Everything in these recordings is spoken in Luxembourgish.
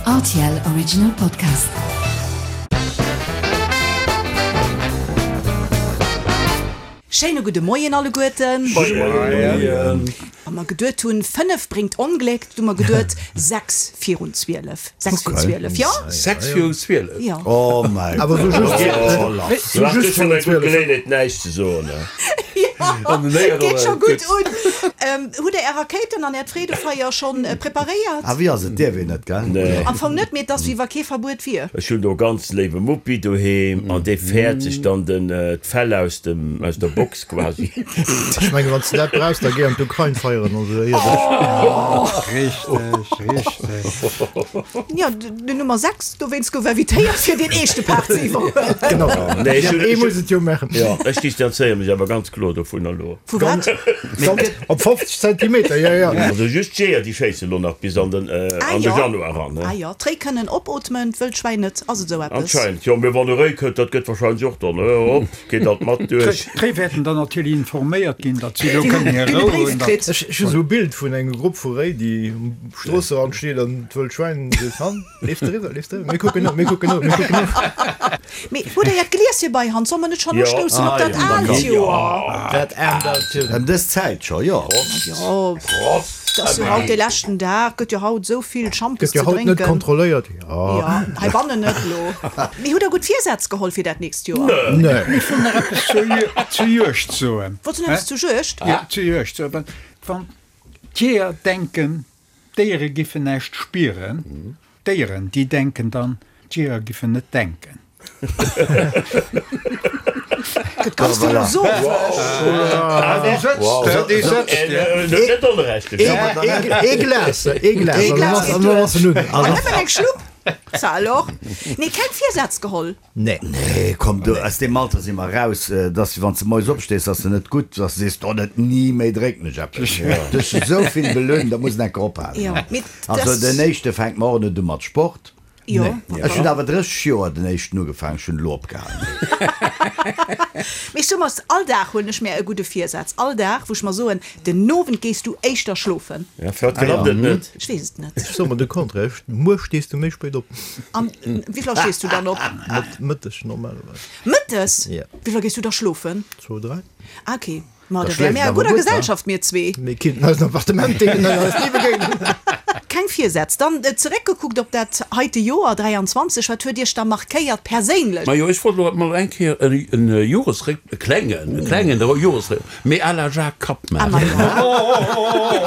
Rtl Original Podcast. Schéine gudde Moien alleguerten. Moien. Wa mer geduet hunn, 5 bréngt Ongléck, du mer geduet 6 virun 12. 6 virun 12, jo? 6 virun 12? Jo. Oh mäi Awer sou just, sou just virun 12. Geleeënheet näischt ze soen. Jo, geet scho gutt un. Hutt der är Rakéiten an äert Freedefeier schonn preparéiert? Ah, wéi ass et? Dierf een net, gell? Nee. Am Fong net, mee et ass wéi wa kee Verbuet wier. Ech hunn do e ganz léiwe Muppi doheem an dee fäert sech dann den d'Fell aus dem aus der Box quasi. Ech mengen, wann s de dat brauchs, da géi an d'Ukrain feieren oder esou iergendwéi. Richteg, richteg. Jo, den Nummer 6 dowéinst gouf invitéiert fir deen eeschte Part ze iwwerhuelen. Genau, Nee, ech hunn, ee ech muss et jo maachen. Jo, ech distanzéiere mech awer ganz kloer dovunner elo. Vu wat? Op 50 Zentimeter, jo, jo. Also just d'Jeeër, déi schéisse lo nach bis an den, Ah an de jo, Januar eran, ne? ah jo, d'Réi kënnen opootmen, d'Wëllschwäin net. Ass et esou eppes? Anscheinend, jo. Mee wann e Réi kënnt, dat gëtt wahrscheinlech och dann, hop, geet dat mat duerch. D'Réi wäerten dann natierlech informéiert ginn, datt si elo kënnen hir Déi hunn e Rou Bréif hunn. kritt. Ech hu sou e Bild vun engem Grupp vu Réi, déi um Stroosserand steet an d'Wëllt Schwäin seet, Han, leeft eriwwer, leeft eriwwer, mir kucken no, mir kucken no, mir kucken no. Mee hutt Der Äert Glieschen bei Hand? Solle mer net schonn Jo. ustoussen op Ah dat jo, da aalt komm. Joer? Dat aalt Joer. Ëm dës Zäit scho, jo. Jo, Prost! et ass jo haut dee leschten Dag, gëtt jo haut esou vill Schampes Gëtt jo ze haut net drénken. kontrolléiert, jo. Jo, heibannen net elo. Mee hutt Der gutt Virsätz geholl fir dat nächst Joer? Nee. Ech wëll nach eppes zur Juegd soen. Wollts du nach eppes zur Juegd? Jo, zur Juegd soen. Wann d'Jeeër denken, D'Déiere giffen näischt spieren. D'Déieren, déi denken dann, d'Jeeër giffen net denken. Gëtt ganz philosophesch. Déi sëtzt, déi sëtzt. Net onrecht. Ee Glas, ee Glas, an dann ass en un. An nëmmen eng Schlupp, ça alors. Nee, keng Virsätz geholl. Nee. Nee, komm, du, aus deem Alter si mer raus, dass wann s de moies opstees, ass se net gutt, dass de sees, oh net ni méi drécken ech eppes. Du hues esou vill belueden, da muss en enker ophalen. Also den éischte fänkt mer och net u mat Sport. Ech hunn awer 30 Joer den éischten ugefaangen, ech hunn elo opgehalen. Mee ech soe mer, all Dag huelen ech mär e gudde Virsaz, all Dag, wou ech mer soen, den Owend gees du éischter schlofen. Ja, firwat klappt et net? Ech weess et net. Ech soe mer de Contraire, muer stees du méi spéit op. An wéi vill Auer stees du dann op? Mëtteg normalerweis. Mëttes? Ja. Wéi vill Auer gees du da schlofen? Zwou, dräi. Ah, okay. Ma Da da wäre schléifs mir a awer gudder gutt, wa? Gesellschaft, mir zwee. Mir kinnten eisen Appartement deelen an eis ni begéinen. Keng Virsätz. Dann zeréckgekuckt op dat heite Joer 23, wat huet Iech da markéiert perséinlech? Majo, ech wollt elo mol eng Kéier e Joresréck, e klengen, e klengen Joresréck, mee à la Jacques Kapp Ah, maachen. ma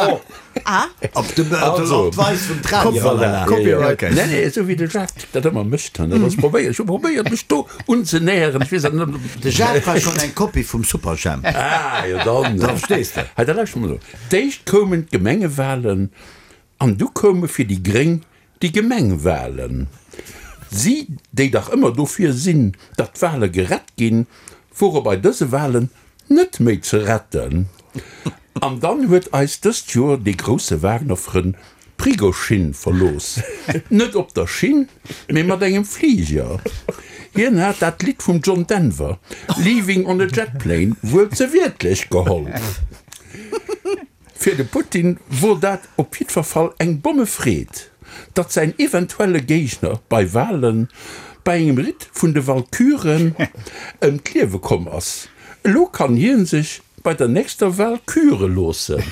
jo. Ah. Op de op d'Weis vum Tradi-Ralala. Copyright. Nee, nee, esou wéi de Jacques dat ëmmer mécht. Dat ass probéiert, ech hu probéiert mech do unzenäheren, ech weess awer net. De Jacques war schonn eng Kopie vum Superjhemp. Ah, jo dann. Da verstees de. Hei, da lauschter mol elo. D'éischt koumen d'Gemengewahlen an du koume fir déi Gréng déi Gemengwahlen. Si, déi dach ëmmer dofir sinn, datt d'Wahle gerett ginn, wore bei dëse Wahlen net méi ze retten. An dann huet eis dëst Joer dee grousse Wagner-Frënn Prigoschin verlooss. Net op der Schinn, mee mat engem Fliger. Hien hat dat Lidd vum John Denver, Leaving on a Jet Plane, wuel ze wiertlech geholl. Fir de Putin wor dat op jiddwer Fall eng Bommefreed, datt säin eventuelle Géigner bei Walen bei engem Ritt vun de Walküren ëm d'Liewe komm ass. Elo kann hien sech bei der nächster Wal küre loossen.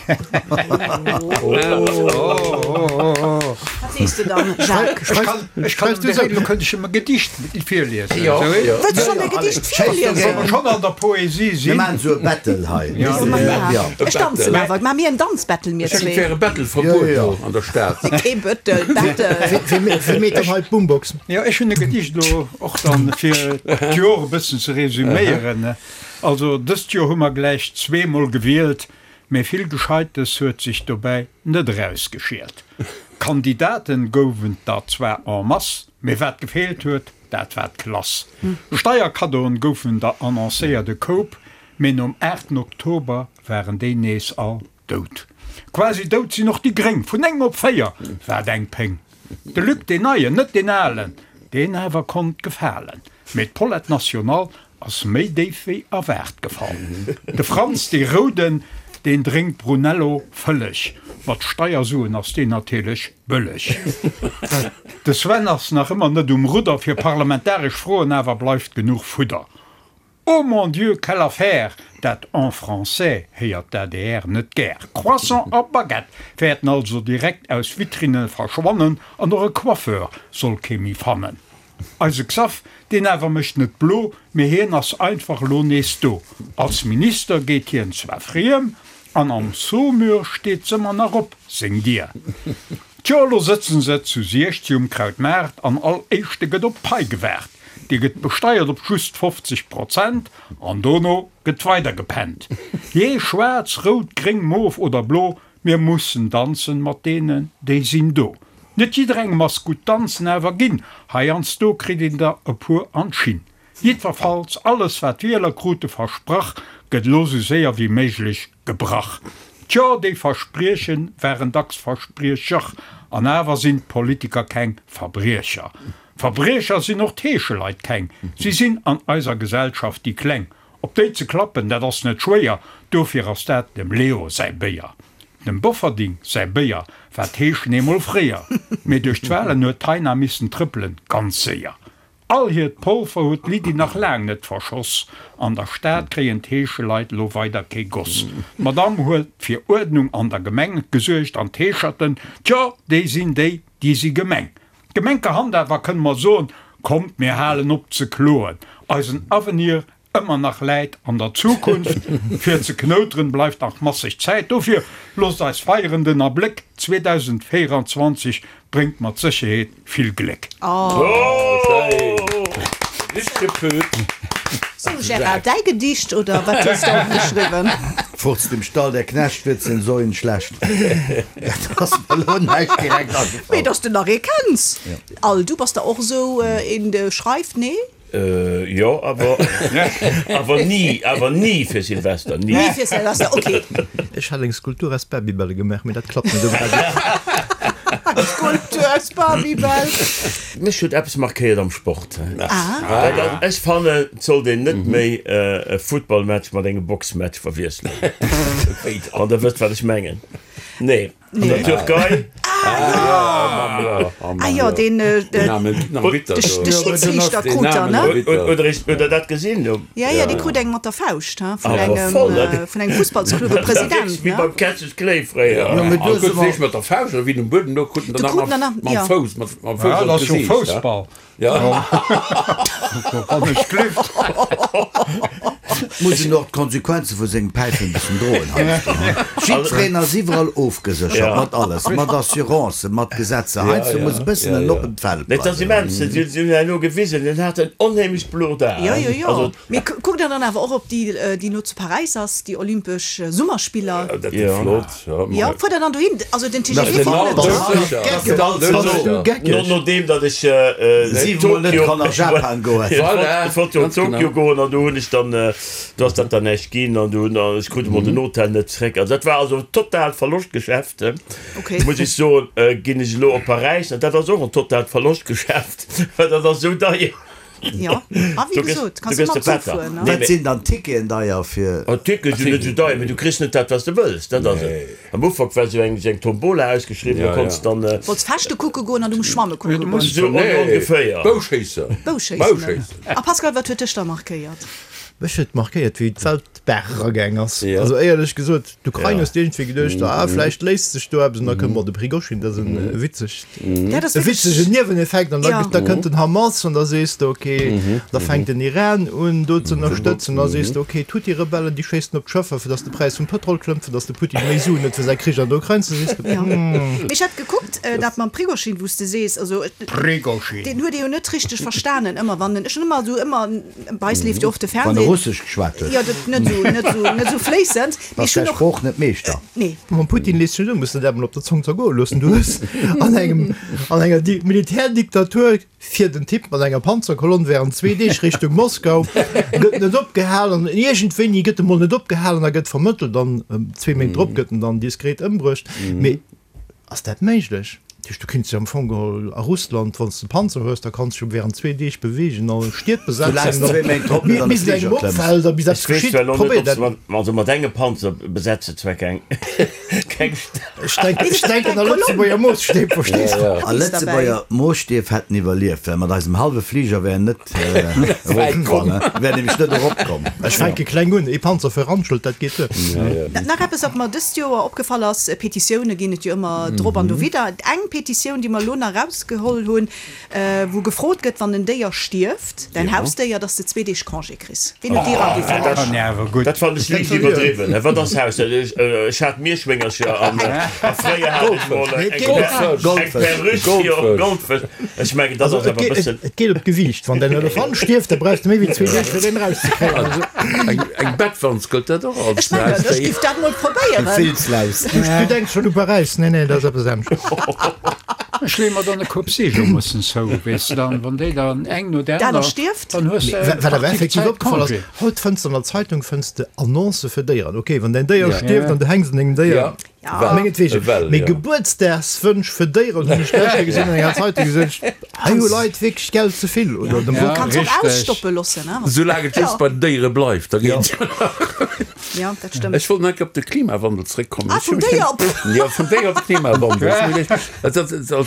Wat sees de dann, Jacques? Ech kann direkt, elo kënnt ech em e Gedicht virliesen. Wëlls du schonn e Gedicht virliesen? Wa mer schonn an der Poesie sinn. Mir maachen esou e Battle hei. Ech danzen awer. Maache mir en Danzbattle, mir Ech zwee. et wär e Battle-Verbuet do an der Stad. Kee Bëttel, Battle. Wie meet dann hei d'Boombox? Jo, ech hunn e Gedicht elo och dann, fir d'Jor e bëssen ze resüméieren. Also dëst Joer hu mer gläich zweemol gewielt, mee vill Gescheites huet sech dobäi net erausgeschielt. Kandidaten gouwen der zwar en masse, mee wat gefeelt huet, dat war d'Klass. Steierkaddoen goufen der annoncéiert e Koup, mee nom 8 Oktober waren déi nees all dout. Quasi dout sinn och déi Gréng, vun 9 op 4, wat eng Péng! De Luc, deen Neien, net deen Alen, deen awer konnt gefalen, mee d'Paulette Nationale ass méi déif wéi erwaart gefall. De Franz, dee Rouden, deen drénkt Brunello vëlleg, mat Steiersuen ass deen natierlech bëlleg. De Sven ass nach ëmmer net um Rudder, fir parlamentaresch Froen awer bleift genuch Fudder. Oh mon Dieu, quelle affaire! Dat en français héiert d'ADR net gär. Croissant a Baguette wäerten also direkt aus Vitrinne verschwannen an och e Coiffeur soll kee méi fannen. Eise Xaph, deen awer mécht net blo, mee hien ass einfach elo nees do. Als Minister geet hien zwar friem, an am Saumur steet s'ëmmer nach op, seng Dier. Tjo, elo sëtzen se zu 16 um Krautmaart an all Éischte gëtt op d'Pai gewaart. Déi gëtt besteiert op just 50 Prozent an dono gëtt weider gepennt. Jee, schwaarz, rout, gréng, mof oder blo, mir mussen danzen mat deenen, déi sinn do. Net jidderengem ass gutt danzen awer ginn, heiansdo kritt een der e puer an d'Schinn. Jiddwerfalls, alles wat d'Wieler krute versprach, gëtt elo sou séier wéi méiglech gebrach. Tjo, déi Versprieche waren dacks Verspriecher, an awer sinn d'Politiker keng Verbriecher. Verbriecher sinn och d'Heescheleit keng, si sinn an eiser Gesellschaft déi Kleng. Op déi ze klappen, dat ass net schwéier, dofir ass dat dem Leo säi Béier. Dem Bofferding säi Béier war d'Heeschen eemol fréier, mee duerch d'Walen huet d'Taina missen trëppelen, ganz séier. All hiert Polver huet d'Lydie nach laang net verschoss. An der Stad kréien d'Heescheleit lo weider kee Goss. D'Madame huet fir Uerdnung an der Gemeng gesuergt an d'Heescherten, tjo, déi sinn déi, déi si gemeng. Gemenkerhand awer kënne mer soen, kommt mir halen op ze kloen, eisen Avenir ëmmer nach läit an der Zukunft. Fir ze knouteren bleift nach masseg Zäit, dofir loosst eis feieren, den Abléck 2024 bréngt mat Sécherheet vill Gléck. Sou Gérard, däi Gedicht oder wat hues de opgeschriwwen? Furzt im Stall, der Knecht wird den Säuen schlecht. Dat ass mer elo näischt direkt agefall. Mee dass de nach ee kenns. Al, du bass der och esou een, de schreift, nee? Jo, awer awer ni, awer ni fir Silvester, ni. Ni fir Silvester, ok. Ech hat eng Skulptur aus Babybälle gemaach, mee dat klappt net um Radio. Eng Skulptur aus Babybäll. Mech huet eppes markéiert am Sport. Dat ass, ech fannen, et sollt een net méi e Futtballmatch mat engem Boxmatch verwiesselen. Wann der wësst, wat ech mengen. Nee. An der Türkei? Ah jo, deen de Schidsriichter krut der, ne? Huet der dat gesinn? Jo, jo, dee krut eng mat der Fauscht, he, vun engem, vun engem Fussballsclub, e President, ne? Wéi beim Cassius Clay fréier. Jo, mee do si mer. Mat der Fauscht, oder wéi den um Buedem louch, krut en der nach mam Fouss, mam Fouss an d'Gesiicht, he? Muss en och d'Konsequenze vu sengem Päifen e bëssen droen heiansdo, he? Jiddwereen ass iwwerall ofgeséchert, mat alles, mat Assurancen, mat Gesetzer. Heiansdo muss e bëssen en oppent Feld bleiwen. Et ass immens, si hunn herno gewisen, en hat en onheemlecht blot A. Jo, jo, jo. Mee kuckt der dann awer och op déi, déi no zu Paräis ass, déi Olympesch Summerspiller? Dat gëtt flott, jo. Jo, fuert der dann dohin? Also den TGV fält net. Nodeem datt ech Siwemol net kann a Japan goen. Ech wollt jo Tokio goen an do hunn ech dann, do ass dat dann näischt ginn an do hunn, ech krut emol den Hotel net zréck. Also dat war also totaalt Verloschtgeschäft, muss ech soen. Ginn ech elo op Paräis an dat ass och en totaalt Verloschtgeschäft, well dat ass esou deier. Jo, a wéi gesot, kanns du mam Zuch fueren, ne? Wat sinn dann d'Ticketen deier fir? Oh, d'Tickete sinn net esou deier, mee du kriss net dat, wat s de wëlls. Dat ass et. Am Ufank war esou eng, esou eng Tombola ausgeschriwwen, do konns dann. Wollts Fechte kucke goen an du muss schwamme kucke goen. Esou ongeféier. Bouschéissen. Bouschéissen. A Pascal, wat huet dech da markéiert? Mech huet markéiert, wéi d'Welt d'Baach eragaang ass. Also éierlech gesot, d'Ukrain hues de iergendwéi geduecht, ah vläicht léist sech do eppes an da kënnt mer de Prigoschin, dat ass e witzegt, e witzegen Nieweneffekt an da da kënnt den Hamas an da sees de okay, da fänkt den Iran un do ze ënnerstëtzen, da sees de okay, d'Huthi-Rebellen déi schéissen op d'Schëffer fir datt de Präis vum Pëtrol klëmmt, fir datt de Putin méi Suen huet fir säi Krich an der Ukrain, da sees de hm. Mee ech hat gekuckt, dat mam Prigoschin, wou s de sees, also deen huet ee jo net richteg verstanen ëmmer wann en, ech hunn ëmmer esou ëmmer, Bei eis leeft jo oft de Wann e Fernseh. Russesch geschwat huet. Jo, dat net esou, net esou, net esou fléissend. Mee Bass ech hunn däi och. Sprooch net Meeschter. Nee. Mam Putin lees sech un, muss de dat emol op der Zong zergoe loossen. Du hues an engem, an enger Di Militärdiktatur fiert en Typ mat enger Panzerkolonn während zwee Deeg Richtung Moskau, gëtt net opgehalen an iergendwéini gëtt e mol net opgehalen a gëtt vermëttelt an zwee Méint drop gëtt en dann diskret ëmbruecht. Mee Ass dat méiglech? Dat heescht, du kinns dech am Fong geholl a Russland, wann s de Panzer hues, da kanns de dech jo während zwee Deeg beweegen a Stied Soulaang besetzen, s zwee Méint drop net an de bis et engem Fliger klëmms. opfält a bis Ech eppes weess geschitt. zwar elo net, Probéier ob se dat. mat, also mat engem Panzer besetze zwar keng. Keng Stad. Ech denken, ech denken a Lëtzebuerger Moosstäb, verstees de? A Lëtzebuerger Moosstief hätten iwwerlieft, well mat eisem hallwe Fliger wär en net eropkomm, wär nämlech net eropkomm. Ech fänke kleng un, ee Panzer fir Randschelt, dat geet duer. Nach eppes, wat mer dëst Joer opgefall ass, Petitioune ginn et jo ëmmer drop an dowidder. Eng Petitioun, déi mer elo nach erausgeholl hunn, Wou gefrot gëtt, wann en Déier stierft, däin Hausdéier, dass de zwee Deeg Congé kriss. Ween huet déi eraginn? Dat fannen ech liicht iwwerdriwwen. Wat ass Hausdéier? Ech hat Mierschwéngercher an fréier hat ech mol eng Perruche, jo, Goldfësch. Ech mengen, dat ass awer e bëssen. Et geet op d'Gewiicht. Wann däin Elefant stierft, da brauchs de méi wéi zwee Deeg, fir deen erauszekréien. Eng Bettwanz, gëllt dat och als Ech mengen, ech giff dat mol probéieren. Eng Filzlaus. Du denks schonn u Paräis. Nee, nee, dat ass eppes anescht. Ech leeë mer dann e Koup Seegelmussen zou, weess de, dann, wann déi dann eng no der aner stierft, dann hues de eng Wat awer effektiv opgefall ass, haut fënns de an der Zeitung fënns de Annoncë fir Déieren. Ok, wann däin Déier stierft an du hänks un dengem Déier, mengetwegen. Mee Gebuertsdagswënsch fir Déieren hunn ech gëschter gesinn an enger Zeitung, gesot ech, hei hu Leit wierklech Geld ze vill oder dem Wupp. Kanns och ausstoppe loossen, ne? Soulaang et just bei den Déiere bleift, da geet et jo nach. Ja, dat stëmmt. Ech wollt nach eng Kéier op de Klimawandel zréckkommen. Ah, vum Déier op. Jo, vum Déier op de Klimawandel.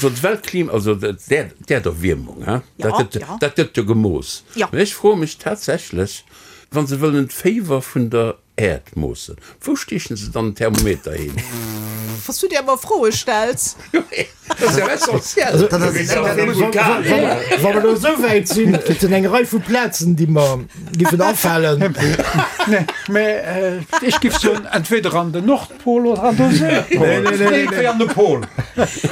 Also d'Weltklima, also d'Äerderwiermung, hein, dat gëtt, dat gëtt jo gemooss. Jo. Mä ech froe mech tatsächlech, wa se wëllen d'Féiwer vun der Äerd moossen, wou stiechen se dann den Thermometer hin? Was du dir ëmmer Froe stells. Dat ass jo essentiell. Wa mer elo esou wäit sinn, et sinn eng Rei vu Plazen, déi mer giffen afalen. Mä ech giff soen, entweder an den Nordpol oder an de Südpol. Iergendwéi an de Pol.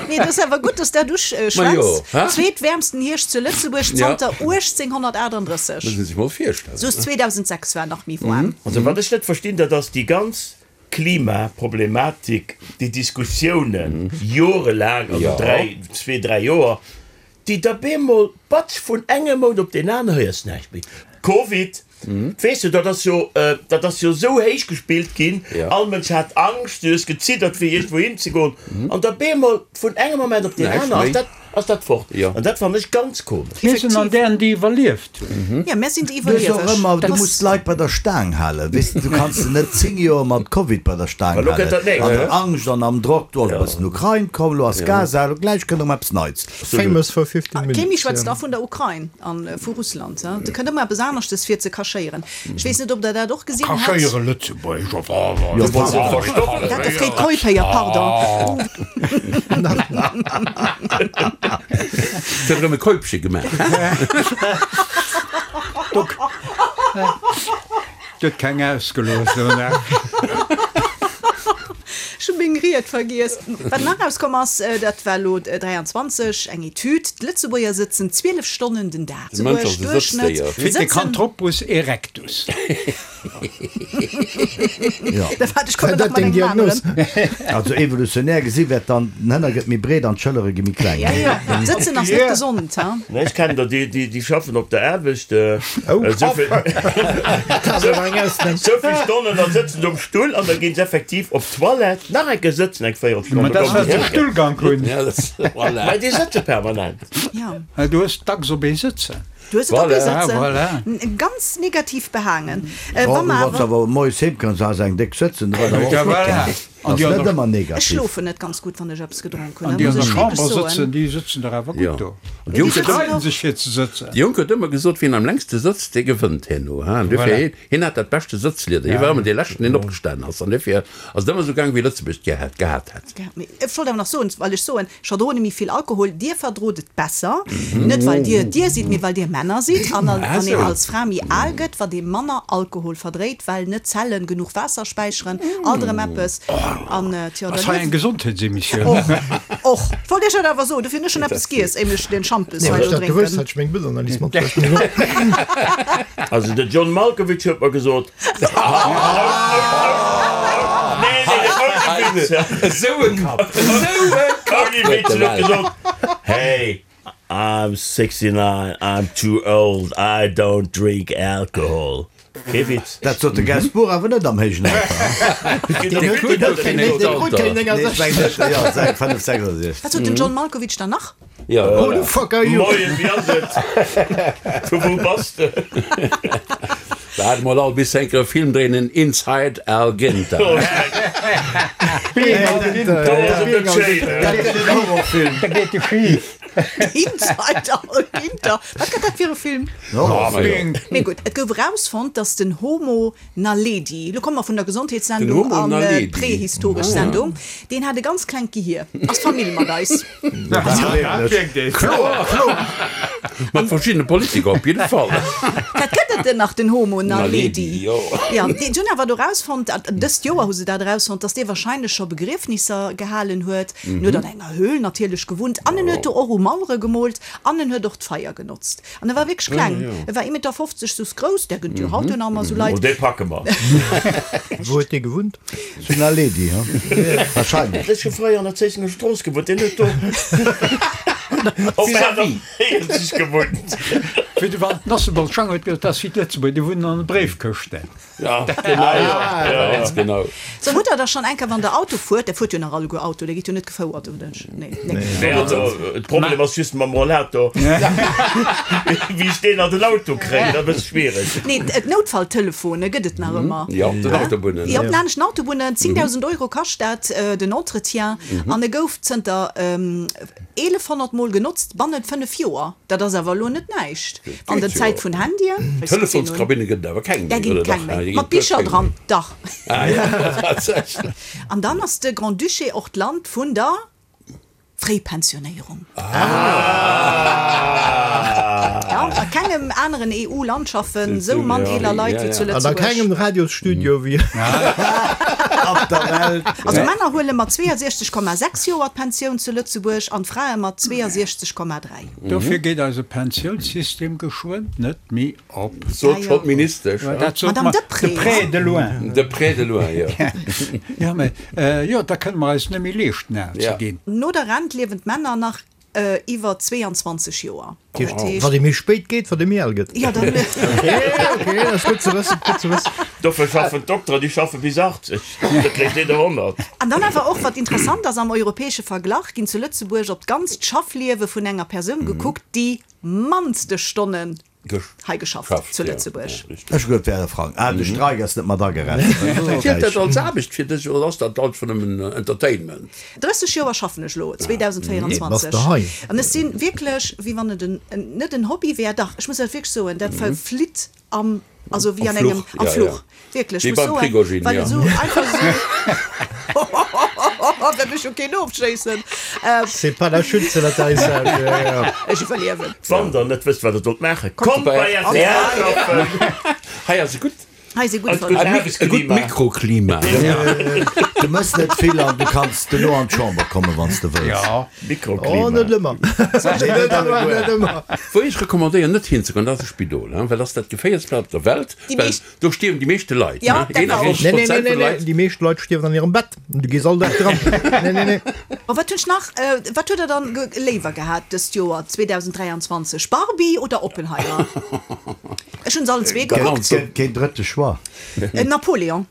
Nee, et ass awer gutt, dass dat uschwätz. Zweetwäermsten Hierscht zu Lëtzebuerg zanter 1838. Muss ee sech mol virstellen. Soos 2006 war nach méi waarm. Also wat ech net verstinn, dat ass déi ganz Klimaproblematik, déi Diskussiounen jorelaang, also dräi, zwee, dräi Joer, déi da bemol, batsch, vun engem Mount op deen aneren héiers näischt méi. Covid, weess de, dat ass jo, dat ass jo esou héich gespillt ginn, all Mënsch hat Angscht, du hues geziddert fir iergendwou hinzegoen, an da bemol vun engem Moment op deen aneren ass dat, ass dat fort. An dat fannen ech ganz komesch. Mir sinn an dären, déi iwwerlieft hunn. Jo, mär sinn déi Du hues och Iwwerlieweg. ëmmer, du muss d'Leit bei der Staang halen, weess de, du kanns se net 10 Joer mat Covid bei der Staang Elo kënnt dat halen, nächst, an der ne? Angscht an am Drock, do ass e bëssen Ukrain komm, elo ass Gaza, elo gläich kënnt erëm eppes Neits. Famous for 15 Kémi minutes, schwätzt jo. da vun der Ukrain a vu Russland. Do kënnt ëmmer eppes aneschtes fir ze kachéieren. Ech weess net, ob Der dat och gesinn hat. Kachéiere Lëtzebuerger. Dat de Fred Keup-Héier, pardon. Huet erëm e Keupche gemaach. Gëtt keng ausgelooss. Ech hu meng Ried vergiess. Wat nach erauskomm ass, dat war elo 23, eng Etüd, D'Lëtzebuerger sëtzen 12 Stonnen den Dag. De Mënsch ass e Sëtzdéier. Pithecanthropus erectus. Dat deng Diagnos? Also evolutionär gesi wäert dann, den Hënner gëtt méi breet an d'Schëllere gi méi kleng. Sëtzen ass net gesond, ha? Nee, ech kennen der, déi schaffen op der Aarbecht esou vill Stonnen, da sëtzen se um Stull an da ginn se effektiv op d'Toilette nach eng Kéier sëtzen eng Véierelstonn. Ma dat ass, well se Stullgank hunn. Mä déi sëtze permanent. Du hues dacks op ee sëtzen. Du hues et op ee sëtzen. Voilà. Ganz negativ behaangen. Wa mer awer. Awer moies heem kënns, has eng déck sëtzen, da war dat och flott. Voilà. Ass net ëmmer negativ. Ech schlofen net ganz gutt, wann ech eppes gedronk hunn. An déi an der Chamber sëtzen, déi sëtzen dach awer gutt do. Déi streiden sech fir ze sëtzen. De Jong huet ëmmer gesot, wien am längste sëtzt, dee gewënnt herno. An dofir, hien hat dat beschte Sëtzlieder. Hie war ëmmer dee Leschten, deen opgestanen ass. An dofir ass et ëmmer esou gaang, wéi Lëtzebuerg et gehat hätt. Ech wollt awer nach soen, well ech soen, Ech verdroen méi vill Alkohol, dir verdrot et besser, net well dir dir sidd, mee well dir Männer sidd. An wann een als Fra méi al gëtt, wat ee manner Alkohol verdréit, well net d'Zellen genuch Waasser späicheren, alt erëm eppes. An tjo, Ass hei eng Gesondheetsemissioun? Och, och. Ech wollt iech dat awer soen, dofir hunn ech schonn eppes giess, éier ech den Schampes hei Wann elo ech dat gewosst drénken. hätt, hätt ech meng Bildanalyse matbruecht. Also de John Malkovich huet mer gesot, Esou e Kapp! Esou e Kapp huet de Welt! Hey, I'm 69, I'm too old, I don't drink alcohol. Kee Witz. Dat sot de Gainsbourg awer net am héijen Alter. Deen huet keen 69. Wat sot den John Malkovich dann nach? Ja, Who voilà. the fuck are you? Moien, wéi ass et? Vu wou bass de? Waart mol all bis se enker e Film dréinen en Inside Al Ginter. Inside Al Ginter, wat gëtt dat fir e Film? Mee gutt, et gouf erausfonnt, datt den Homo Naledi, elo komme mer vun der Gesondheetssendung an d'prehistoresch Sendung, deen hat e ganz klengt Gehier, ass Famill mat eis. Mat verschiddene Politiker op jidde Fall. Dat gëtt et en nach, den Homo Naledi. Jo, déi hunn awer do erausfonnt, dëst Joer hu se dat erausfonnt, datt dee warscheinlech scho Begriefnisser gehalen huet. En huet an enger Höhl natierlech gewunnt an en huet do och u Mauere gemoolt an en huet och d'Feier genotzt. An e war wierklech kleng, e war 1,50 Meter soss grouss, där gëtt jo haut jo nach ëmmer esou Leit. Oh, dee packe mer. Wou huet dee gewunnt? Zu Naledi, ha? Wahrscheinlech. Ech hu fréier an der Zéissenger Strooss gewunnt, deen huet do op 48 gewunnt. Wéi de Walter Nossebolz Schang huet gesot, dat ass wéi d'Lëtzebuerger, déi wunnen an de Bréifkëschten. Ja, genau, ja, ganz genau. So, hutt der da schonn eng Kéier, wann der Auto fuert, der fuert jo nach alleguer Auto, der gitt jo net gefouert, oder? Nee, nee. Nee, also de Problem ass just mam Rollator, wéi ech deen an den Auto kréien, dat ass e bësse schwiereg. Nee, d'Noutfalltelefone gëtt et nach ëmmer. Jo, op den Autobunnen. Jo, op den aneschten Autobunnen. 10.000 Euro kascht dat, den Entretien. An e gouf zënter 1.100 Mol genotzt bannent 5 Joer. Dat ass awer elo net näischt an der Zäit vun Handyen. Telefonskabinne gëtt et awer keng méi, Där ginn oder et keng dach? méi. Déi Mat ginn et Bicher keng dran, méi. dach. Ah ja, tatsächlech. An dann ass de Grand-Duché och d'Land vun der Fréipensionéierung. Ja, a kengem aneren EU-Land schaffen esou mann eeler Leit wéi zu An a Lëtzebuerg. kengem Radiosstudio wéi op der Welt. Also Männer huele mat 62,6 Joer d'Pensioun zu Lëtzebuerg an d'Frae mat 62,3. Dofir geet eise Pensiounssystem geschwënn net méi op. Sot schonn d'Ministesch. Dat sot Madame mer Deprez. de près de loin. De près de loin, jo. Jo, mä jo, da kënne mer eis net méi leeschten, al ze ginn. No der Rent liewen d'Männer nach iwwer 22 Joer. Dat heescht. Wat ee méi spéit geet, wat ee méi al gëtt. Jo, dann. Ok, ok, dat ass gutt ze wëssen, gutt ze wëssen. Dofir schaffen d'Dokteren, déi schaffe bis 80, da kréich deen der 100. An dann awer och, wat interessant ass, am europäesche Verglach ginn zu Lëtzebuerg op d'ganzt Schaffliewe vun enger Persoun gekuckt, déi mannste Stonnen hei geschafft zu Lëtzebuerg. Ech hu geduet, wär e Frang. Ah, de Streik ass net mat agerechent. Zielt dat als Aarbecht fir dech oder ass dat einfach nëmmen Entertainment? 30 Joer schaffen ech elo, 2024, an ech si wierklech, wéi wann et en, net en Hobby wär, dach, ech muss dat wierklech soen, dat verflitt am, also wéi an engem, am Fluch. Wierklech, Wéi muss beim soen, Prigojin, well ja. et esou einfach esou, Hohohoho, well ech jo keen ofschéissen. C'est pas la chute, c'est l'atterrissage, ja, ja. Ech iwwerliewen. Wann der net wësst wat der sollt maachen, kommt bei rtl schaffen! Hei ass e gutt Hei si gutt Eist gutt verluer. e gutt Aarbechtsklima. Mikroklima. Du mëss net vill an du kanns duerno an d'Chamber kommen, wann s de wëlls. Ja. Mikroklima. Oh, net ëmmer. Net ëmmer, net ëmmer. Wou ech recommandéieren net hinzegoen, dat ass e Spidol, well dat ass dat geféierlechst Plaz op der Welt. Déi Well meescht. do stierwen déi meeschte Leit, Ja, ne? dat war och. 51 Nee, nee, nee, Prozent nee, vun nee. Leit. Déi meescht Leit stierwen an hirem Bett. Du gees all Dag dran. Nee, nee, nee. Oh, wat hunn ech nach? Wat hutt der dann léiwer gehat dëst Joer 2023, Barbie oder Oppenheimer? Ech hunn se allen zwee gekuckt. Gëtt keen drëtte Choix. Napoléon.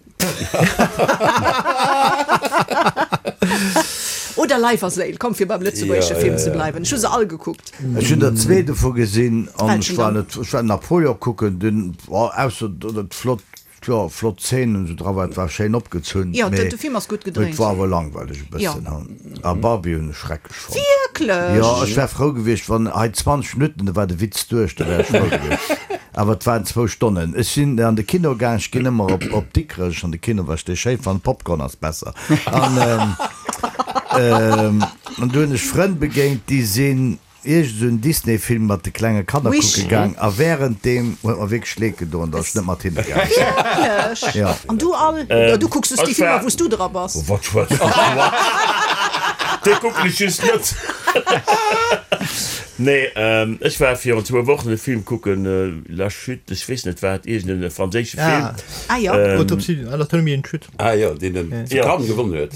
Oder Leif a Séil, komm fir beim lëtzebuergesche Film ze bleiwen. Ech hu se all gekuckt. Ech hunn der zwee dovu gesinn an Welchen ech war dann? net, ech war Napoleon kucken, dunn, ausser datt et flott, jo, flott Szenen esou dra war, et war schéin opgezunn, Jo, mee de Film ass gutt et gedréint. war awer langweileg e Jo. bëssen. A Barbie hunn ech schrecklech fonnt. Wierklech? Jo, ech wär frou gewiescht, wann hei 20 Minutten, da war de Witz duerch, da wär ech frou gewiescht. Awer et waren zwou Stonnen. Ech sinn an de Kino gaang, ech ginn ëmmer op, op Dikrech an de Kino, well ech dee schéi fannen, Popcorn ass besser. An, an do hunn ech Frënn begéint, déi sinn iergend esou en Disney-Film mat de klenge Kanner Wish. kucke gaang a wärenddeem huet mer wierklech leed gedoen, datt ech net mat hinne gaang sinn. Wierklech? Ja. An du all? Du kucks just déi Ech Filmer, war. wou s du dra bass. Oh, wat schwätzt du? Déi kucken ech just net. Nee, ech war virun zwou Wochen e Film kucken, La Chute, ech weess net wat, iergend e franséische Film. Ah jo. Autopsie, Anatomie d'une chute. Ah jo, deen den zu Cannes gewonnen huet.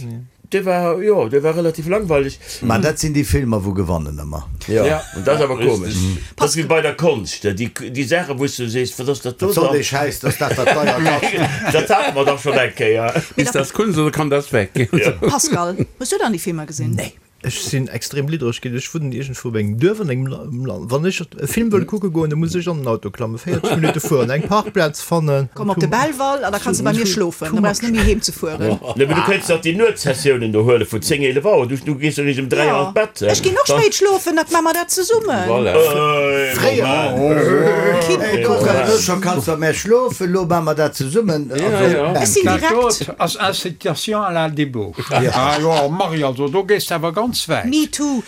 Dee war, jo, dee war relativ langweileg. Mä dat sinn déi Filmer, wou gewannen ëmmer. Jo, an dat ass awer komesch. Dat ass wéi bei der Konscht, déi, déi Saachen, wou s du sees, wat ass dat do Wat soll dann? dee Schäiss, dass dat wat deier kascht? Dat hate mer dach schonn eng Kéier. Ist das Kunst oder kann das weg? Pascal, hues du dann déi Filmer gesinn? Nee. Ech sinn extrem liddereg ginn. Ech wunnen iergendwou op engem Duerf an engem Land. Wann ech e Film wëll kucke goen, da muss ech an den Auto klammen, 40 Minutte fueren, eng Parkplaz fannen. Komm op de Belval an da kanns de bei mir schlofen. Da brauchs net méi heem ze fueren. Nee, mee du kéints dach déi Nuetssessiounen do huele vun 10, 11 Auer. Du du gees eréischt ëm 3 an d'Bett. Ech ginn och spéit schlofen, da maache mer dat zesummen. Voilà. Elo scho kanns de bei mär schlofen, elo maache mer dat zesummen. Ech sinn Dat direkt. dot ass Incitation à la débauche. Ah jo, Marie, also do gees de awer ganz wäit. Me too.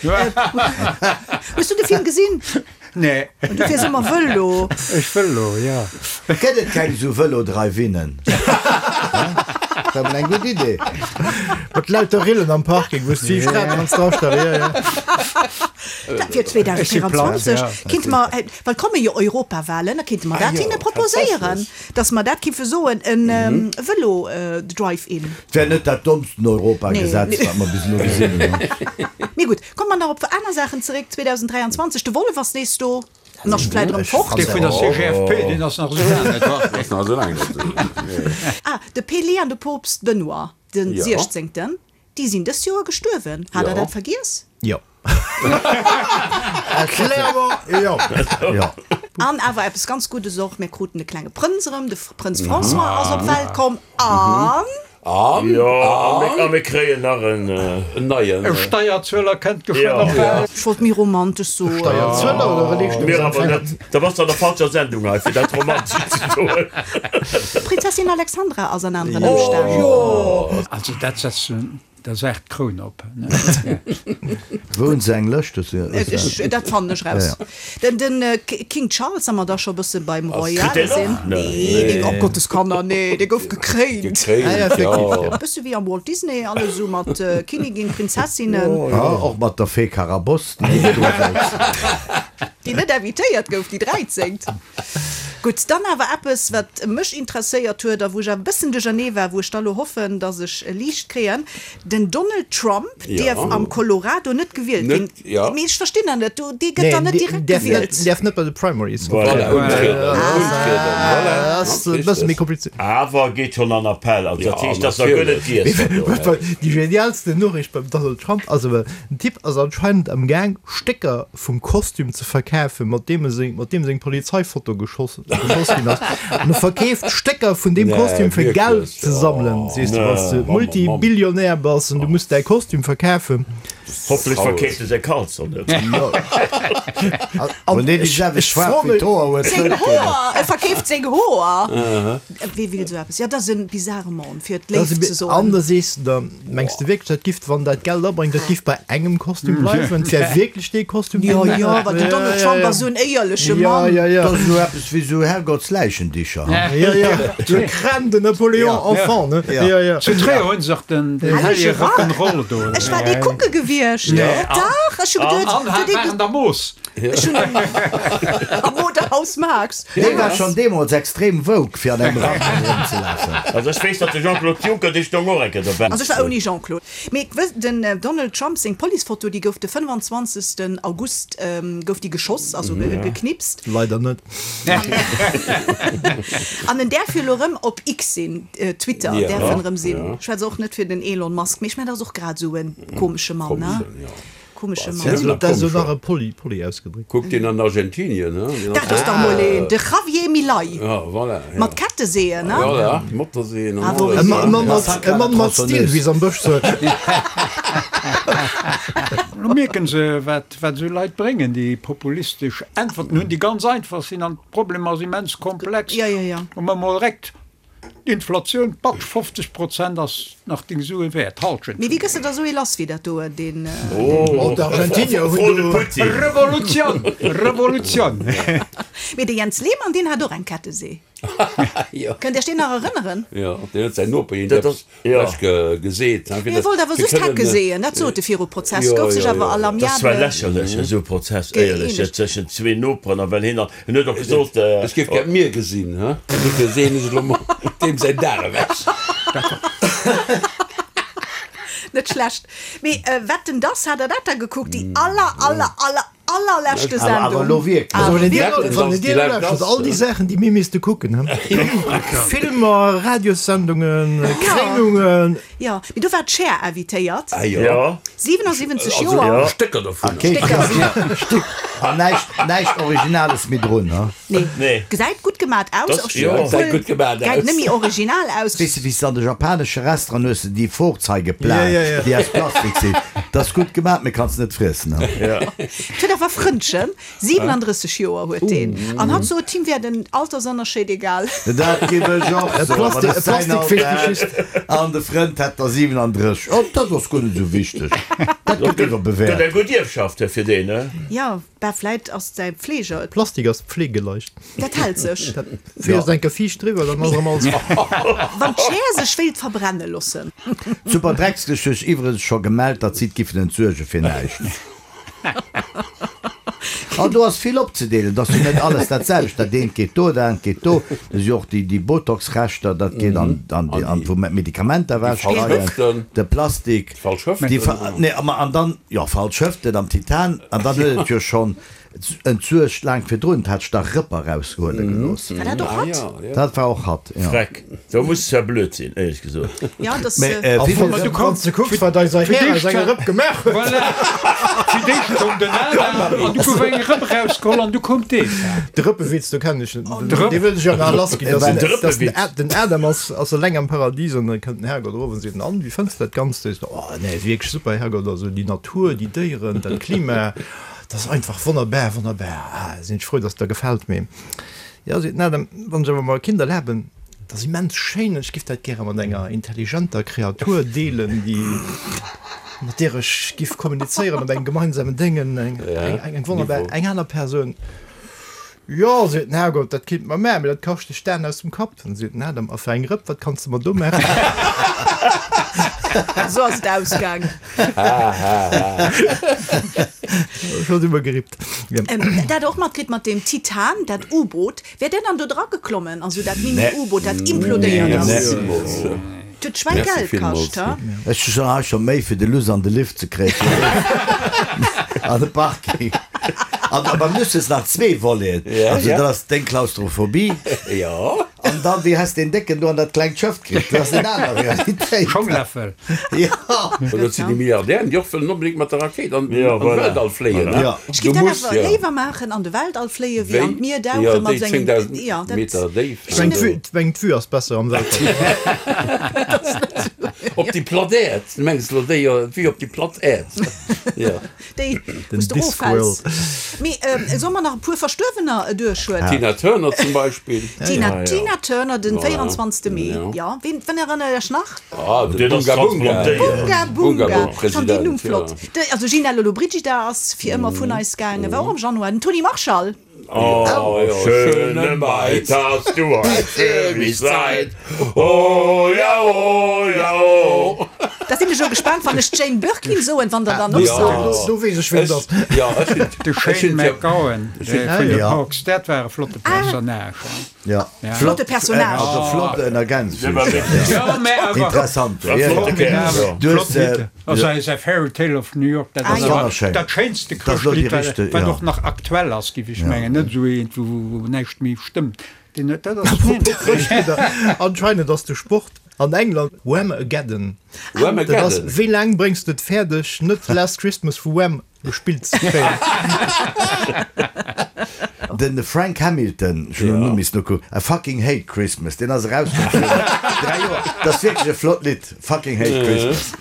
Hues du de Film gesinn? Nee. Du fiers ëmmer Vëlo. Ech Vëlo, jo. Gëtt et keng esou Vëlo-Drive-Innen? Dat wär mol eng gutt Idee. Mat lauter Rillen am Parking, wou s du déi Strat kanns drastellen, jo, jo. Dat fir 2024 kinnte mer, well et komme jo Europawahlen, da kinnte mer dat hinne proposéieren, datt mer dat kiffe soen, e Vëlo-Drive-In. 't wär net dat dommsten Europagesetz, wat mer bis elo gesinn hunn. Mee gutt, komme mer nach op aner Saachen zeréck. 2023, de Wollef ass nees do, en ass vläit erëm fort. Dee vun der CGFP, deen ass nach esou laang net wach. Ass nach esou laang net do. Ah, de Pelé an de Poopst Benoît den Siechzéngten, déi sinn dëst Joer gestuerwen. Hat der dat vergiess? Jo. Clairement, jo. Jo. An awer eppes ganz Guddes och, mir kruten e klenge Prënz erëm, de Prënz François ass op d'Welt komm an. An? Jo, a mir kréien nach en. En neien. E Steierzueler kënnt geschwënn op d'Welt. Ech wollt méi romantesch soen. Steierzueler oder Mir awer Religionsempfänger? net. Da bass de an der falscher Sendung hei, fir dat romantesch ze soen. D'Prinzessin Alexandra ass an aneren Ëmstänn. Also dat setzt Der Saach d'Kroun op, ne? Wou hunn se eng Lëscht? Dat fannen ech raus. Den King Charles, wa mer da scho e bësse beim Royale sinn. Nee, deen, oh Gottes Kanner, nee, dee gouf gekréint. Gekréint, jo. E bësse wéi am Walt Disney, alles esou mat Kinnigin, Prinzessinnen. Och mat der Fee Carabosse, déi net do wollt. Déi net invitéiert gouf, déi dräizéngt. Gutt, dann awer eppes, wat mech interesséiert huet a wou ech awer e bëssen duerchernee war, wou ech da lo hoffen, datt ech e Liicht kréien, Den Donald Trump dierf am Colorado net gewielt ginn. Mee ech verstinn dat net, do, dee gëtt dann net direkt gewielt. Deen däerf net bei de Primaries untrieden. Dat ass e bësse méi komplizéiert. Awer geet schonn an Appell, also dat heescht, dass der guer net giess gëtt. Déi genialsten Noriicht beim Donald Trump ass awer, den Typ ass anscheinend am Gaang, Stécker vum Kostüm ze verkafen, mat deem e seng, mat deem seng Polizeifoto geschoss, geschoss ginn ass. An e verkeeft Stécker vun deem Kostüm fir Geld ze sammelen. Sees de, wann s de Multibillionär bass an du muss däi Kostüm verkafen. Hofflech verkeeft e säi Kalzong net. An ech, ech fro mech. Seng Hoer! E verkeeft seng Hoer! Wee will esou eppes? Jo, dat ass e bizarre Mann, fir et léif ze soen. An da sees de der, mengs de wierklech, dat giff, wann dat Geld abréngt, dat giff bei engem Kostüm bleiwen? Et wär wierklech dee Kostüm, deen. Jo, jo, well den Donald Trump ass esou en éierleche Mann. Jo, jo, jo. Dat ass esou eppes wéi esou Herrgottsläichendicher, ha? Jo, jo, le crâne de Napoléon enfant, ne? Jo, jo. Zu Tréier hunn se och den hellege Rock'n'Roll do. Ech war dee kucke gewiescht. Dach, ech hu geduet, An war an der Moos. Ech hunn am Modehaus Marx. Dee war schonn deemools extrem woke, fir an engem Rack erëmzelafen. Also ech weess, datt de Jean-Claude Juncker, dee stoung och eng Kéier dobäi. Also ech war ouni Jean-Claude. Mee den Donald Trump seng Policefoto, déi gouf de 25. August gouf déi geschoss, also geknipst. Leider net. An en däerf jo elo erëm op X sinn, Twitter däerf en erëm sinn. Ech schwätze och net fir den Elon Musk, mee ech mengen, dat ass och grad esou e komesche Mann, ne? Komesche Mann. Dat ass jo nach e poli, poli ausgedréckt. Kuck deen an Argentinien, he? Dat ass dach mol een, de Javier Milei. Ja, voilà, ja. Mat Ketteseeën, ne? Voilà, Motorseeën an alles. E Mann mat, e Mann mat Stil, wéi se am Bësch soen. Lo mierken se, wat, wat esou Leit bréngen, déi populistesch Äntwerten hunn, déi ganz einfach sinn, an d'Problemer ass immens komplex. Ja, ja, ja. Hu mer mol direkt D'Inflatioun, patsch, 50 Prozent ass nach deng Sue wäert, d'Halschent. Mee wéi gëss de da sou ee lass wéi dat do, deen. Oh, d'Argentinier hunn do. Revolutioun! Revolutioun! Mee de Jens Lehmann, deen hat och eng Kettesee. Kënnt Iech deen nach erënneren? Jo, deen huet säin Noper hien eppes lech geseet. Hie wollt awer just Hecke seeën, dat sot e viru Prozess, gouf sech awer à l'amiable. Dat ass zwar lächerlech, esou e Prozess, éierlech, tëschent zwee Noperen, a well hien an. En huet och gesot. Ech géif gär d'Mier gesinn, he? Dofir seeën ech elo mol deem säin Dag ewech. Net schlecht. Mee wat den dass, hat der dat da gekuckt? Déi aller, aller, aller. Allerleschte Sendung. Awer elo wierklech. Also wann een dir, wann een dir nolauschtert, all déi Saachen, déi mir misste kucken, he? Filmer, Radiossendungen, Kréinungen. Jo, mee do war d'Cher invitéiert. Ah jo. 77 Joer. Stécker dovunner. Stécker. An näischt, näischt Originales méi drun, he? Nee. Nee. Gesäit gutt gemat aus. Das, jo. Gesäit gutt gemat aus. Gesäit net méi original aus. Weess de, wéi s de an de japanesche Restauranten hues de déi Vorzeigeplan, déi aus Plastik sinn. Dat ass gutt gemat, mee kanns net friessen. Et huet awer Frëndchen, 37 Joer huet deen. An hatt sot, him wär den Altersënnerscheed egal. Dat giff ech och soen, wann ech säin Alter hätt an de Frënd hätt der 37. Oh, dat ass guer net esou wichteg. Dat gëtt iwwerbewäert. Gëtt eng gutt Ierfschaft fir deen, ne? Jo. Bah, vläit ass säi Pfleger et. Plastik ass pflegeleicht. Dat hält sech. Dat fees eng Kéier fiicht driwwer, dann ass erëm alles. Wann d'Schär sech wéilt verbrenne lossen. Super Dreckslech huet sech iwwregens scho gemellt, datt si et giffen entsuerge fir näischt. An do ass vill opzedeelen, et ass jo net alles dat selwecht, dat eent geet do, dat anert geet do, do si och déi Botox-Reschter, dat geet an an wou mer d'Medikamenter ewechgeheien, de Plastik, déi nee, an dann, jo, falsch Hëften am Titan, an dann huet et jo schonn entsuergt laang virdrun, hat sech da Rëpper eraushuele gelooss. War dat och hatt? Dat war och hatt, jo. Freck, do muss es ja blöd sinn, éierlech gesot. Ja, das. Mä Äh, wéi wann du kanns du kucks, wat eiser Här aus enger Rëpp gemaach huet. Voilà, fir d'éischt koum den Adam an du gouf eng Rëpp erausgeholl an du koum d'Eva. De Rëppewitz, do kennen ech en. De Rëpp. Dee wëll ech jo nach lassginn. Dass Den den, dass den, Rëppewitz. Ad, den Adam ass, ass eleng am Paradies an da kënnt den Herrgott erof an seet, An, wéi fënns de dat Ganzt? Seet en, Oh, nee, wierklech super, Herrgott, also déi Natur, déi Déieren, dat Klima, dat ass einfach wonnerbar, wonnerbar. Ah, sinn ech frou, dass et der gefält. Mee jo, seet den Adam, wann ech awer mer e Kind erlaben, dat ass immens schéin an ech giff dat gäre mat enger intelligenter Kreatur deelen, déi, mat där ech giff kommunizéieren op engem gemeinsamen Déngen, eng, eng, eng wonnerbar, eng aner Persoun. Jo, seet den Herrgott, dat kinnt mer maachen, mee dat kascht dech d'Aen aus dem Kapp. Dann seet den Adam, A fir eng Rëpp, wat kanns de mer do maachen? Esou ass et ausgaang. Ech hunn iwwergerippt. Dat och matkritt mat deem Titan, dat U-Boot. Wär där dann do dra geklommen? Also dat Mini-U-Boot, dat implodéiert ass. Et huet Schwängeld kascht, ha? Ech hu schon hei scho Méi fir de Luss an de Lift ze kréien an de Parking. An beim Luss hues nach zwee Voleten. Also dat ass deng Klaustrophobie. An dann, wéi häss deen Décken do an dat klengt Schëff kritt? Dat ass eng aner Realitéit. Schongläffel. Jo. Dat sinn déi Milliardären, déi och wëllen onbedéngt mat der Rakéit an de Weltall fléien. Ech géif dat awer léiwer maachen, an de Weltall fléien, wéi an d'Mier dauchen mat esou engem. Jo, déi 10.000 Meter Déift. Ech mengen, d'Vue ass besser am Weltall. Op déi platt Äerd. Du mengs elo déi, d'Vue op déi platt Äerd. Jo. Déi, wou s de eroffäls. Mee solle mer nach e puer Verstuerwener duerchhuelen? D'Tina Turner zum Beispill. D'Tina, Tina Turner, den 24. Mee, jo. Ween, ween erënnert Iech nach? Ah, de Bunga Bunga. Bunga Bunga. Ech fannen deen Numm flott. De, also Gina Lollobrigida ass fir ëmmer vun eis gaangen, war och am Januar. Den Tony Marshall. Oh, schöne Maid, hast du heut für mich Zeit? Oh ja, oh ja, oh. Da sinn ech elo gespaant, wann ech d'Jane Birkin soen, wann der dann och sot. Do weess ech, wien et ass. De Shane MacGowan vun den Hawks, dat war e flotte Personnage. Ja. Flotte Personnage. Also flott en Ergänzung. Interessant. Also säi Fairy Tale of New York, dat ass awer dat schéinste Chrëschtlidd, wat och nach aktuell ass, géif ech mengen, net esou eent, wou näischt méi stëmmt. Deen huet, dat ass Chrëschtlidd. Anscheinend ass de Sport an England Whamageddon. Dat ass, wéi laang bréngs de et fäerdeg, net Last Christmas vu Wham gespillt ze kréien. Den Frank Hamilton, ech hunn den Numm missen nokucken, I fucking hate Christmas, deen ass erauskomm virun 3 Joer. Dat ass wierklech e flott Lidd, Fucking hate Christmas.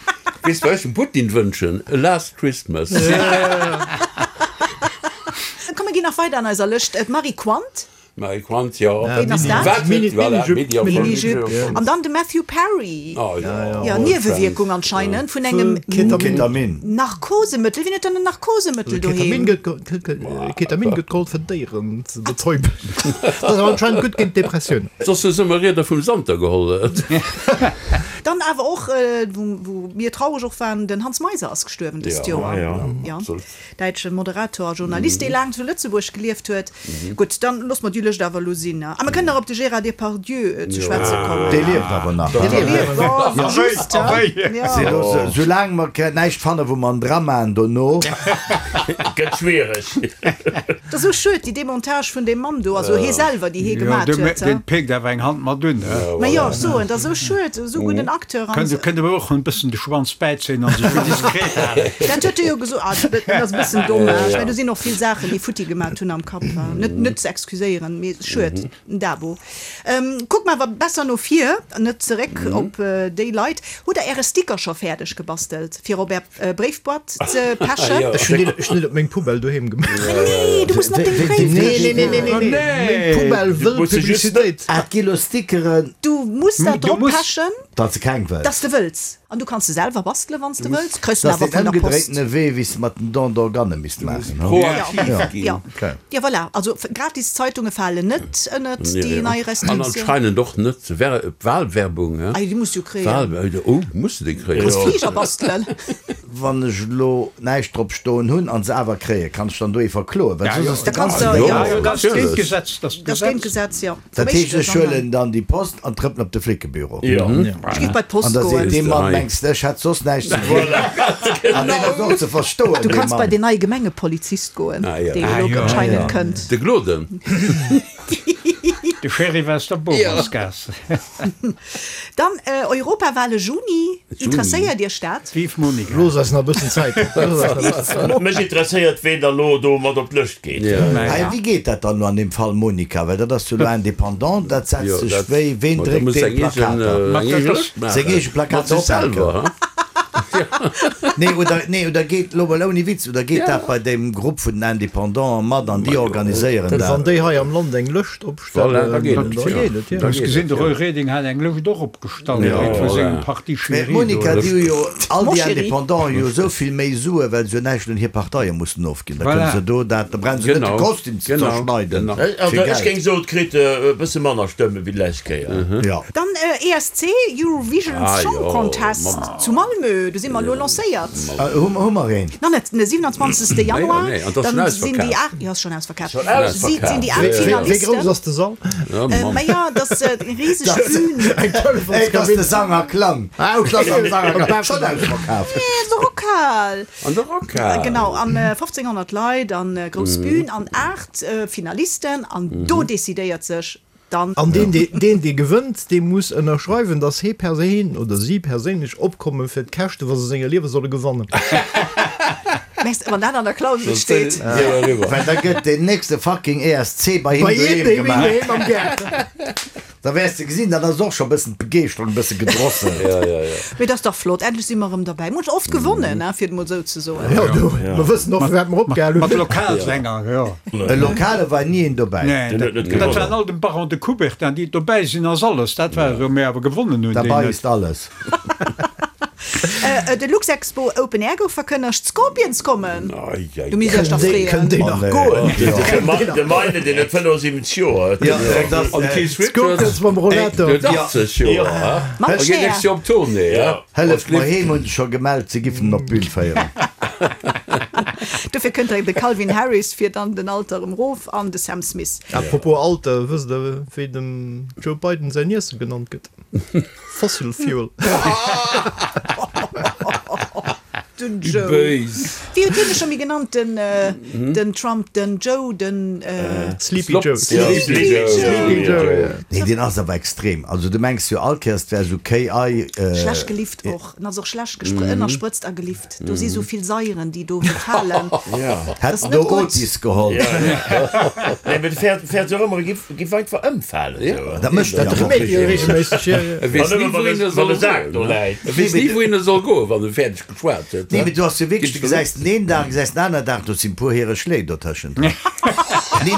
Weess wat ech dem Putin wënschen? A last Christmas. Komm mir ginn nach weider an eiser Lëscht. D'Marie Quant. Marie Quant, jo. Ween ass dat? Wat huet, voilà, Mini, Mini-Jupe. An dann de Matthew Perry. Oh jo. Jo, Niewewierkung anscheinend vun engem Ketamin. Narkosemëttel. Wien huet dann en Narkosemëttel Ketamin doheem? gëtt, Ketamin gëtt geholl fir Déieren ze betäuben. Dat ass awer anscheinend gutt géint Depressioun. Soss hu se ëmmer Rieder vum Santer geholl. Dann awer och, wou mir traureg och waren, den Hans Meiser ass gestuerwen dëst Joer. Jo, absolut. Däitsche Moderator a Journalist, dee laang zu Lëtzebuerg gelieft huet. Gutt, dann loosse mer déi. Lëscht awer elo sinn. A mer kënnen nach op de Gérard Depardieu ze schwätze kommen. Dee lieft awer nach. Dee lieft, oh, just, jo. Soulaang mer näischt fannen, wou mer en dramaen dono. Gëtt schwiereg. Et ass esou schued, déi Demontage vun deem Mann do, also hee selwer, déi hee gemat huet. Deen péckt awer eng Hand mat un, he? Ma jo, ech soen, et ass esou schued, esou gudden Acteur. Kënnt kënnt awer och en bëssen de Schwanz bäizéien an sech méi diskret halen. Dat huet e jo gesot. Ah, dat ass e bëssen dommage, mä do sinn och vill Saachen, déi futti gemat hunn am Kapp. Net, net ze excuséieren, mee schued. Den Dabo. Kuck mer awer besser no vir, net zeréck op déi Leit. Hutt der äre Sticker scho fäerdeg gebastelt fir op är Bréifboîte ze pechen? Ech hunn deen op meng Poubelle doheem gemaach. René, du muss en op deng Bréifkëscht maachen. Meng Poubelle wëll Publicitéit. Ah, et gi lo Stickeren. Du muss dat drop pechen. Datt se keng wëlls. Datt s de wëlls. An du kanns se selwer bastelen, wann s de wëlls. Kriss Dat en ass awer deen vun der Post. ëmgedréitene Wee, wéi s de mat den Don d'organe misst maachen, ho? Proaktiv ginn. Ja, ja, voilà. Also gratis Zeitunge falen net ënnert déi nei An Restriktioun. anscheinend och net Wahlwerbung, he? Ah jo, déi muss du jo kréien. Wahl, oh, muss de déi kréien? Kanns Fliger bastelen. Wann ech elo näischt drop stoen hunn an se awer kréien, kann ech dann do ee verkloen? Well soss ass de Da kanns ganzen de, Deel. jo, Jo, dat ass géint d'Gesetz. Dat ass géint d'Gesetz, jo. Dat heescht, ech huelen dann déi Post an trëppelen op de Flickebüro. Ech géif bei d'Post An da goen. seet dee Mann, Mengs de, ech hätt soss näischt ze dinn? An deen ass och ze verstoen, Du dee kanns bei Mann. deen neie Gemengepolizist goen, deen elo anscheinend kënnt. De Gloden. De Sheriff aus der Bowersgaass. Dann Europawale Juni, interesséiert Iech dat? Vive Monica. Looss eis nach e bëssen Zäit. Mech interesséiert ween da lo do mat op d'Lëscht geet. Hei, wéi geet dat dann elo an deem Fall Monica, well dat ass jo elo indépendant, dat setzt sech wéi, ween dréckt dee Plakater? Seng eege Plakater ophänken? Nee, oder, nee, oder geet, elo mol ouni Witz, oder geet dat bei deem Grupp vun den Indépendanten mat an déi organiséieren Dat, wann dat? déi hei am Land eng Lëscht opstellen, da geet et, da geet et, jo. Ech gesinn, de Roy Reding hat eng Lëscht och opgestallt, wéi vu sengem Parti Mä Chéri do. d'Monica, déi hu jo, all Mon déi chéri. Indépendanten hu jo esou vill méi Sue well se jo näischt un hir Parteie mussen ofginn. Da kënne Voilà. se do dat, da brauche se net de Genau, Kostüm ze genau, zerschneiden genau. fir Also ech Geld. géing soen, et kritt e bësse manner Stëmme wéi d'lescht Kéier. Jo. Dann ESC, Eurovision Ah Song jo, Contest Mann. zu Malmö, do si mer elo lancéiert. Hu hu mer een? Nach net, den 27. Januar, Nee, an dat ass dann schonn sinn déi ausverkaaft. 8, jo ass schonn ausverkaaft, Schonn ausverkaaft. sinn déi 8 Wéi grouss Finalisten. ass de Sall? Ja, Mann. Ma jo, dat ass eng riseg Bühn. Eng Ey, dat ass Telefonskabinn. de Sanger Klang. Ah, okay. Dat ass am Sanger Klang. Schonn ausverkaaft. Nee, an der Rockhal. An der Rockhal. Genau, an 1500 Leit an grouss Bühn an 8 Finalisten an do decidéiert sech dann. An deen, dee, deen, dee gewënnt, dee muss ënnerschreiwen, dass hee perséin oder si perséinlech opkomme fir d'Käschte, wa se senger Liewe solle gewannen. Mess, wann dat an der Klausel steet. Well da gëtt deen nächste fucking ESC bei him Bei him doheem doheem gemaach. am Gaart. Da wäers de gesinn, dann ass och scho bëssen d'Begeeschterung e bësse gedrosselt. Ja, ja, ja. Mee dat ass dach flott, endlech si mer erëm derbäi. Mer hunn oft gewonnen, hein, fir et emol esou ze soen. Jo, du, mer wëssen och, firwat mer opgehal hunn. Mat Lokalsänger, jo. E Lokale war ni een dobäi. Nee, Den huet net dat gewonnen. waren all dem Baron de Coubertin, déi dobäi sinn, ass alles. Dat war esou, mee awer gewonnen hunn déi Dabei net. ist alles. De Luxexpo Open Air gouf verkënnegt, d'Scorpions kommen! Du misst iech dach freeën. Kënnt déi nach goen? De Meine, deen huet 75 Joer. An de Keith Richards D'Scorpions mam Rollator. huet 80 Joer. Mam A geet Cher. nächst Joer op Tournée. Hëlleft mer heem hunn se scho gemellt, se giffen en op d'Bün féieren. Dofir kënnt direkt de Calvin Harris fir dann den Alter erëm rof an de Sam Smith. Apropos Alter, wësst der wéi dem Joe Biden säin Iesse genannt gëtt? Fossil Fuel. Den Joe. Béis. Wéi huet hien sech scho méi genannt, den, den Trump, den Joe, den. Sleepy Joe. Sleepy Joe. Sleepy Joe, ja. Nee, deen ass awer extrem. Also du mengs jo all Kéiers, 't wär esou KI. Schlecht gelift och. En ass och schlecht gespr ënnersprëtzt a gelift. Do si sou vill Saieren, déi do falen. Hätt en do Otis geholl. Nee, mee de fäert, fäert jo och ëmmer, e giff, giff einfach ëmfalen. Esou. Dat mécht Dat en reméit jo regelméisseg, jo, jo. E weess ni, wouhin e soll goen. E weess ni, wouhin e soll goen, wann e fäerdeg geschwat huet. Nee, mee du ass jo wierklech, du gesäis den een Dag, gesäis den aneren Dag, do sinn e puer hire Schléi dotëschent. Nee,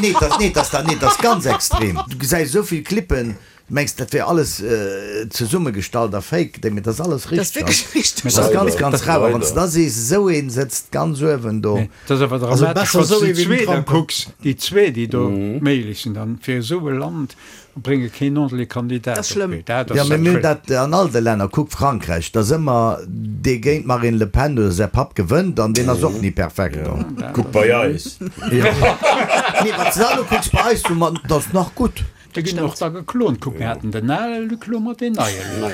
nee, dat, nee, dat ass, nee, dat ass ganz extrem. Du gesäis esou vill Clippen. Du mengs, dat wär alles zesummegestallt a fake, mee dat ass alles Dat ass richteg. wierklech richteg. Dat ass ganz, ganz rar. A wann s de da sees, esou een sëtzt ganz uewen do. Dat ass awer Also dramatesch, besser wann s esou de ee déi wéi den zwee da Trump. kucks, déi zwee, déi do méiglech sinn, dann fir esou e Land brénge keen ordentleche Kandidat Dat ass op schlëmm. d'Bee. Dat Jo, ass mee mir hunn schlëmm. dat an all de Länner. Kuck Frankräich, da ass ëmmer dee géint d'Marine Le Pen oder säi Papp gewënnt an deen ass och ni perfekt. Kuck bei eis. Nee, wann s de dat elo kucks bei eis, du, ma dat ass nach gutt. Déi ginn och da geklont. Kuck, mir haten den ale Luc, lo mat deen neie Luc.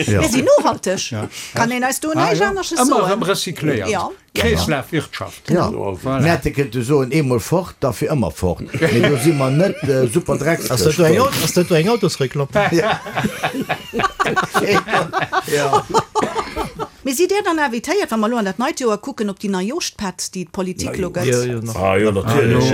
Mir sinn nohalteg. Kann een eis do näischt anesches soen? Ëmmer erëm recycléiert. Kreeslafwirtschaft. Jo, mir hätte kënnte soen, eemol fort, da fir ëmmer fort. Mee do si mer net super Ass dat do eng, ass dat do eng Autosreklamm? Jo. Mee sidd Dir dann invitéiert, wa mer elo an dat neit Joer kucken, op déi Neijooschpatt, déi d'Politik elo gëtt? Jo, jo, nach. Ah jo, natierlech.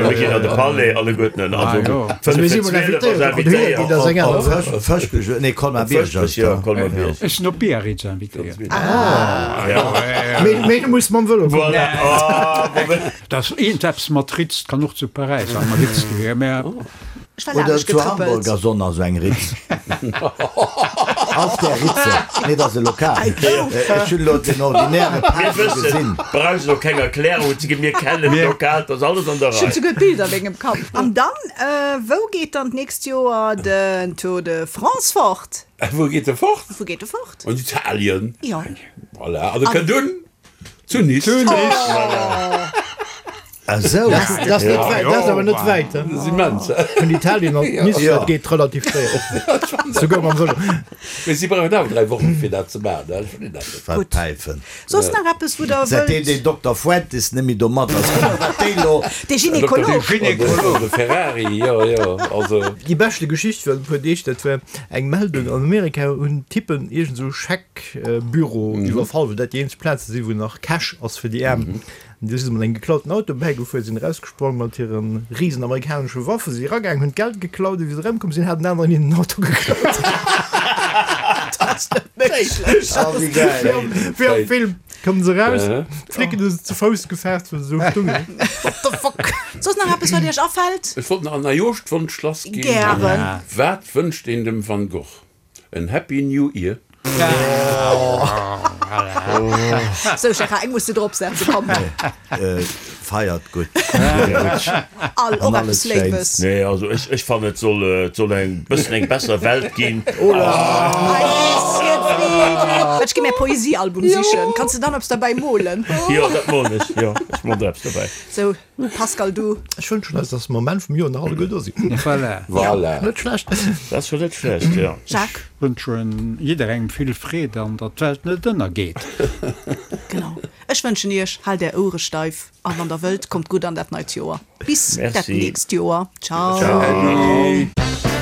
Mir ginn an de Palais alleguerten. Also Also mir si mol 11.45 ass invitéiert, op den Hühner ginn, dat ass eng aner invitéiert. Saach. Fëschbech, nee, Colmar-Bierg ass Jo, da. Colmar-Bierg. Ech sinn op Biarritz invitéiert. Mee, mee du muss mam Vëlo kommen. Voilà. Ah, bon. Dat ass iergendeppes mat Ritz, kann och zu Paräis am Ritz gewier, mä. Ech war Oder laanescht zu Hamburg getrëppelt. ass och nach esou eng Ritz. Auf der Ritze. Nee, dat ass e Lokal. Ech hunn elo den ordinäre Mir Pape wëssen, gesinn. brauchst och keng Erklärung ze ginn, mir kennen d'Lokal, dat ass alles an der Ech hunn Rei. souguer d'Bilder a mengem Kapp. An dann, wou geet dann d'nächst Joer den Tour de France fort? Wou geet e fort? Wou geet e fort? An Italien. Jo. Voilà, an e kënnt un zu Nice. Zu Nice. Esou. Dat ass net wäit, dat ass awer net wäit, he? Dat ass immens, he? Vun Italien an Nice, dat geet relativ séier. Souguer mam Vëlo. Mee si brauchen awer 3 Wochen, fir dat ze maachen, he? Ech verstinn dat net. Wat Päifen. Soss nach eppes, wou Der Säitdeem wëllt. deen Dokter Fuentes net méi do mat ass, kuck mol wat déi lo. Dee Gynekolog. De Gynekolog, de Ferrari, jo, jo, also. Déi beschte Geschicht virun e puer Deeg, dat war eng Meldung, an Amerika hunn Typen iergend esou Scheckbüro iwwerfall, well dat déi eenzeg Plaze sinn, wou nach Cash ass fir déi Aarm. An du si se mat engem geklauten Auto bäigefuer, sinn erausgesprong mat hire risen amerikanesche Waffen, si eragaangen, hunn d'Geld geklaut, a wéi se erëmkomm sinn, hat en aneren hinnen den Auto geklaut. Dat ass net méiglech! Oh, wéi gäil! Wéi am Film kommen se eraus, d'Flicken hu se ze Fouss gefaart, wëll se esou stungen. What the fuck? Soss nach eppes, wat iech afält? Ech wollt nach an Neijooschwonsch lass ginn. Gären. Wat wënscht een dem Van Gogh? En Happy New Year. Sou Gérard, eng muss de drop setzen, komm. Feiert gutt. All, och An eppes alles Léiwes. Schéins. Nee, also ech, ech fannen et soll, et soll eng bëssen eng besser Welt ginn. Ei bisschen Frieden. Ech gi mär Poesiealbum sichen. Kanns de dann eppes derbäi molen? Jo, dat molen ech, jo, ech molen der eppes derbäi. Sou. Pascal, du? Ech wënschen eis, dass mer um Enn vum Joer nach alleguer do sinn. Voilà. Voilà. Net schlecht. Dat ass scho net schlecht, jo. Jacques? Ech wënschen jidderengem vill Freed an datt d'Welt net ënnergeet. Genau. Ech wënschen iech, haalt är Ouere steif an wann der wëllt, kommt gutt an dat neit Joer. Bis dat Merci. nächst Joer. Ciao. Ciao.